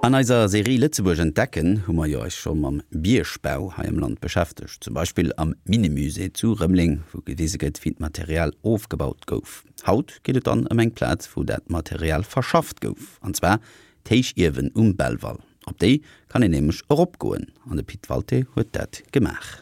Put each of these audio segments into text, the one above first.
An eiser Serie Lëtzebuerg entdecken hu mer jo eis scho mam Biergbau hei am Land beschäftegt. Zum Beispill am Minnemusée zu Rëmeleng, wou gewise gëtt, wéi d'Material ofgebaut gouf. Haut geet et dann ëm eng Plaz, wou dat Material verschafft gouf, an zwar d'Héichiewen um Belval. Op déi kann een nämlech eropgoen, an de Pit Walté huet dat gemaach.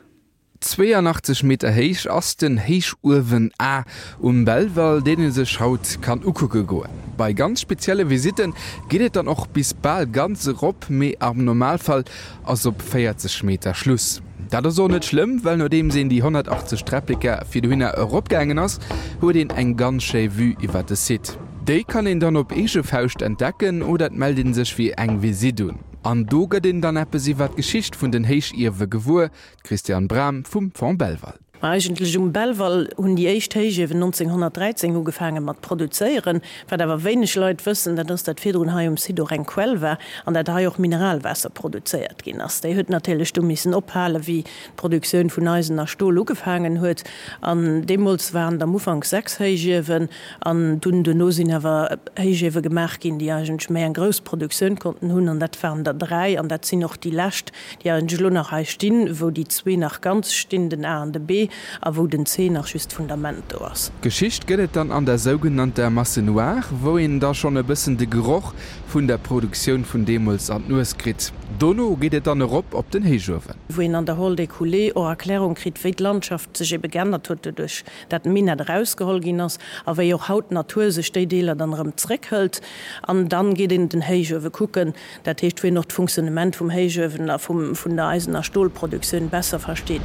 82 Meter héich ass den Héichuewen A um Belval, deen ee sech haut kann ukucke goen. Bei ganz spezielle Visitte geet et dann och bis bal ganz erop, mee am Normalfall ass op 40 Meter Schluss. Dat ass och net schlëmm, well nodeems een déi 180 Träppleke fir dohinner eropgaangen ass, huet een eng ganz schéi Vue iwwer de Site. Déi kann een dann op eege Fauscht entdecken oder et mellt ee sech fir eng Visitt un. An do gëtt een dann eppes iwwer d'Geschicht vun den Héichiewe gewuer, D'Christiane Bram vum Fonds Belval. Ma eigentlech um Belval hunn déi éischt Héichiewen 1913 ugefaange mat produzéieren. Wat awer wéineg Leit wëssen, dat ass, dat virdrun hei um Site och eng Quell war an dat hei och Mineralwaasser produzéiert ginn ass. Déi huet natierlech du missen ophalen, wéi d'Produktioun vun Eisen a Stol ugefaangen huet. An deemools waren et am Ufank 6 Héichiewen an dunn duerno sinn awer Héichiewe gemaach ginn, déi eigentlech méi eng grouss Produktioun konnten hunn an dat waren der 3 an dat sinn och déi lescht, déi eigentlech elo nach hei stinn, wou déi zwee nach ganz stinn, den A an de B, a wou den C nach just d'Fundament do ass. Geschicht gëtt et dann an der sougenannter Masse noire, wou een da schonn e bëssen de Geroch vun der Produktioun vun deemools an d'Nues kritt. Dono geet et dann erop op den Héichuewen. Wou een an der Hall des Coulées och Erklärung kritt, wéi d'Landschaft sech ebe geännert huet doduerch dat d'Minett erausgeholl ginn ass a wéi och haut d'Natur sech déi Deeler dann erëm zréckhëlt. An dann geet een den Héichuewe kucken, Dat heescht, wou een och d'Funktionnement vum Héichuewen a vun der Eisen a Stolproduktioun besser versteet.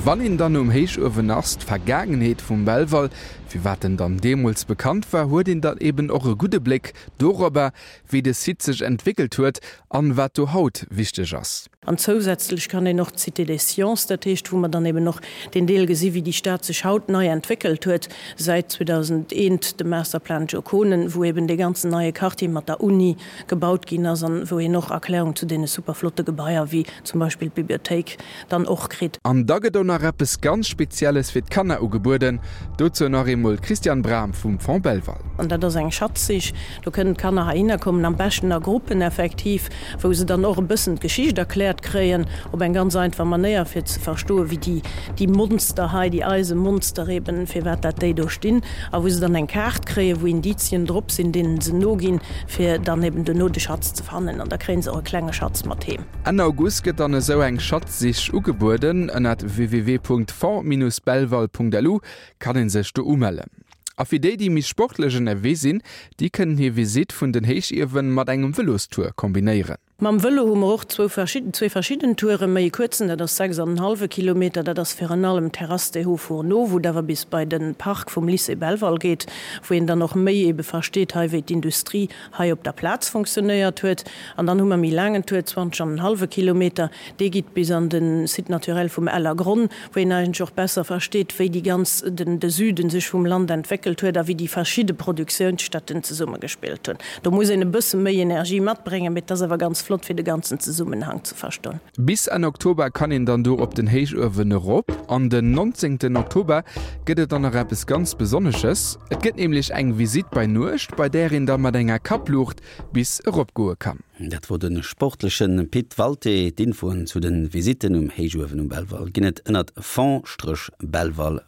Wann een dann um Héichuewen ass, d'Vergaangenheet vum Belval, firwat en dann deemools bekannt war, huet een dann eben och e gudde Bléck dorobber, wéi de Site sech entwéckelt huet an wat do haut wichteg ass. An zousätzlech kann een och d'Cité des Sciences, dat heescht, wou mer dann eben och deen Deel gesi wéi déi Stad sech haut nei entwéckelt huet säit 2001, de Masterplan Joe Konen, wou eben dee ganzen neie Quartier mat der Uni gebaut ginn ass an wou een och Erklärung zu deene super flotte Gebaier wéi zum Beispill d'Bibliothéik dann och kritt. An da gëtt och nach eppes ganz Spezielles fir d'Kanner ugebueden, dozou nach eemol d'Christiane Bram vum Fonds Belval. An dat ass eng Schatzsich, do kënnen d'Kanner heihinner kommen, am beschten a Gruppen effektiv, wou se dann och e bëssen d'Geschicht erkläert kréien, op eng ganz einfach Manéier, fir ze verstoen, wéi déi, déi Monster hei, déi Eisemonster eben, firwat dat déi do stinn, a wou se dann eng Kaart kréien, wou Indizien drop sinn, deenen se noginn, fir dann eben duerno de Schatz ze fannen. An da kréie se och e klenge Schatz mat heem. Enn August gëtt dann esou eng Schatzsich ugebueden. Ënnert www.fonds-belval.lu kann ee sech do umellen. A fir déi, déi méi sportlech ënnerwee sinn, déi kënnen hir Visitt vun den Héichiewen mat engem Vëlostour kombinéieren. Mam Vëlo hu mer och zwou verschidden, zwee verschidden Touren, méi e kuerzen, dat ass 6 an en hallwe Kilometer, dat ass virun allem Terrasse des Hauts Fourneaux, wou et awer bis bei de Park vum Lycée Belval geet, wou een dann och méi ebe versteet hei, wéi d'Industrie hei op der Plaz fonctionnéiert huet. An dann hu mer méi laangen Tour, 20 an en hallwe Kilometer, dee geet bis an de Site naturel vum Ellergronn, wou een eigentlech och besser versteet, wéi déi ganz, den, de Süden sech vum Land entwéckelt huet a wéi déi verschidde Produktiounsstätten zesummegespillt hunn. Do muss een e bësse méi Energie matbréngen, mee et ass awer ganz flott, fir de ganzen Zesummenhang ze verstoen. Bis Enn Oktober kann een dann do op den Héichuewen erop. An den 19 Oktober gëtt et dann nach eppes ganz Besonnesches. Et gëtt nämlech eng Visitt bei Nuecht, bei där een da mat enger Kappluucht bis eropgoe kann. Dat wor de sportleche Pit Walté. D'Infoen zu de Visitten um Héichuewen um Belval ginn et ënnert fonds-belval.lu.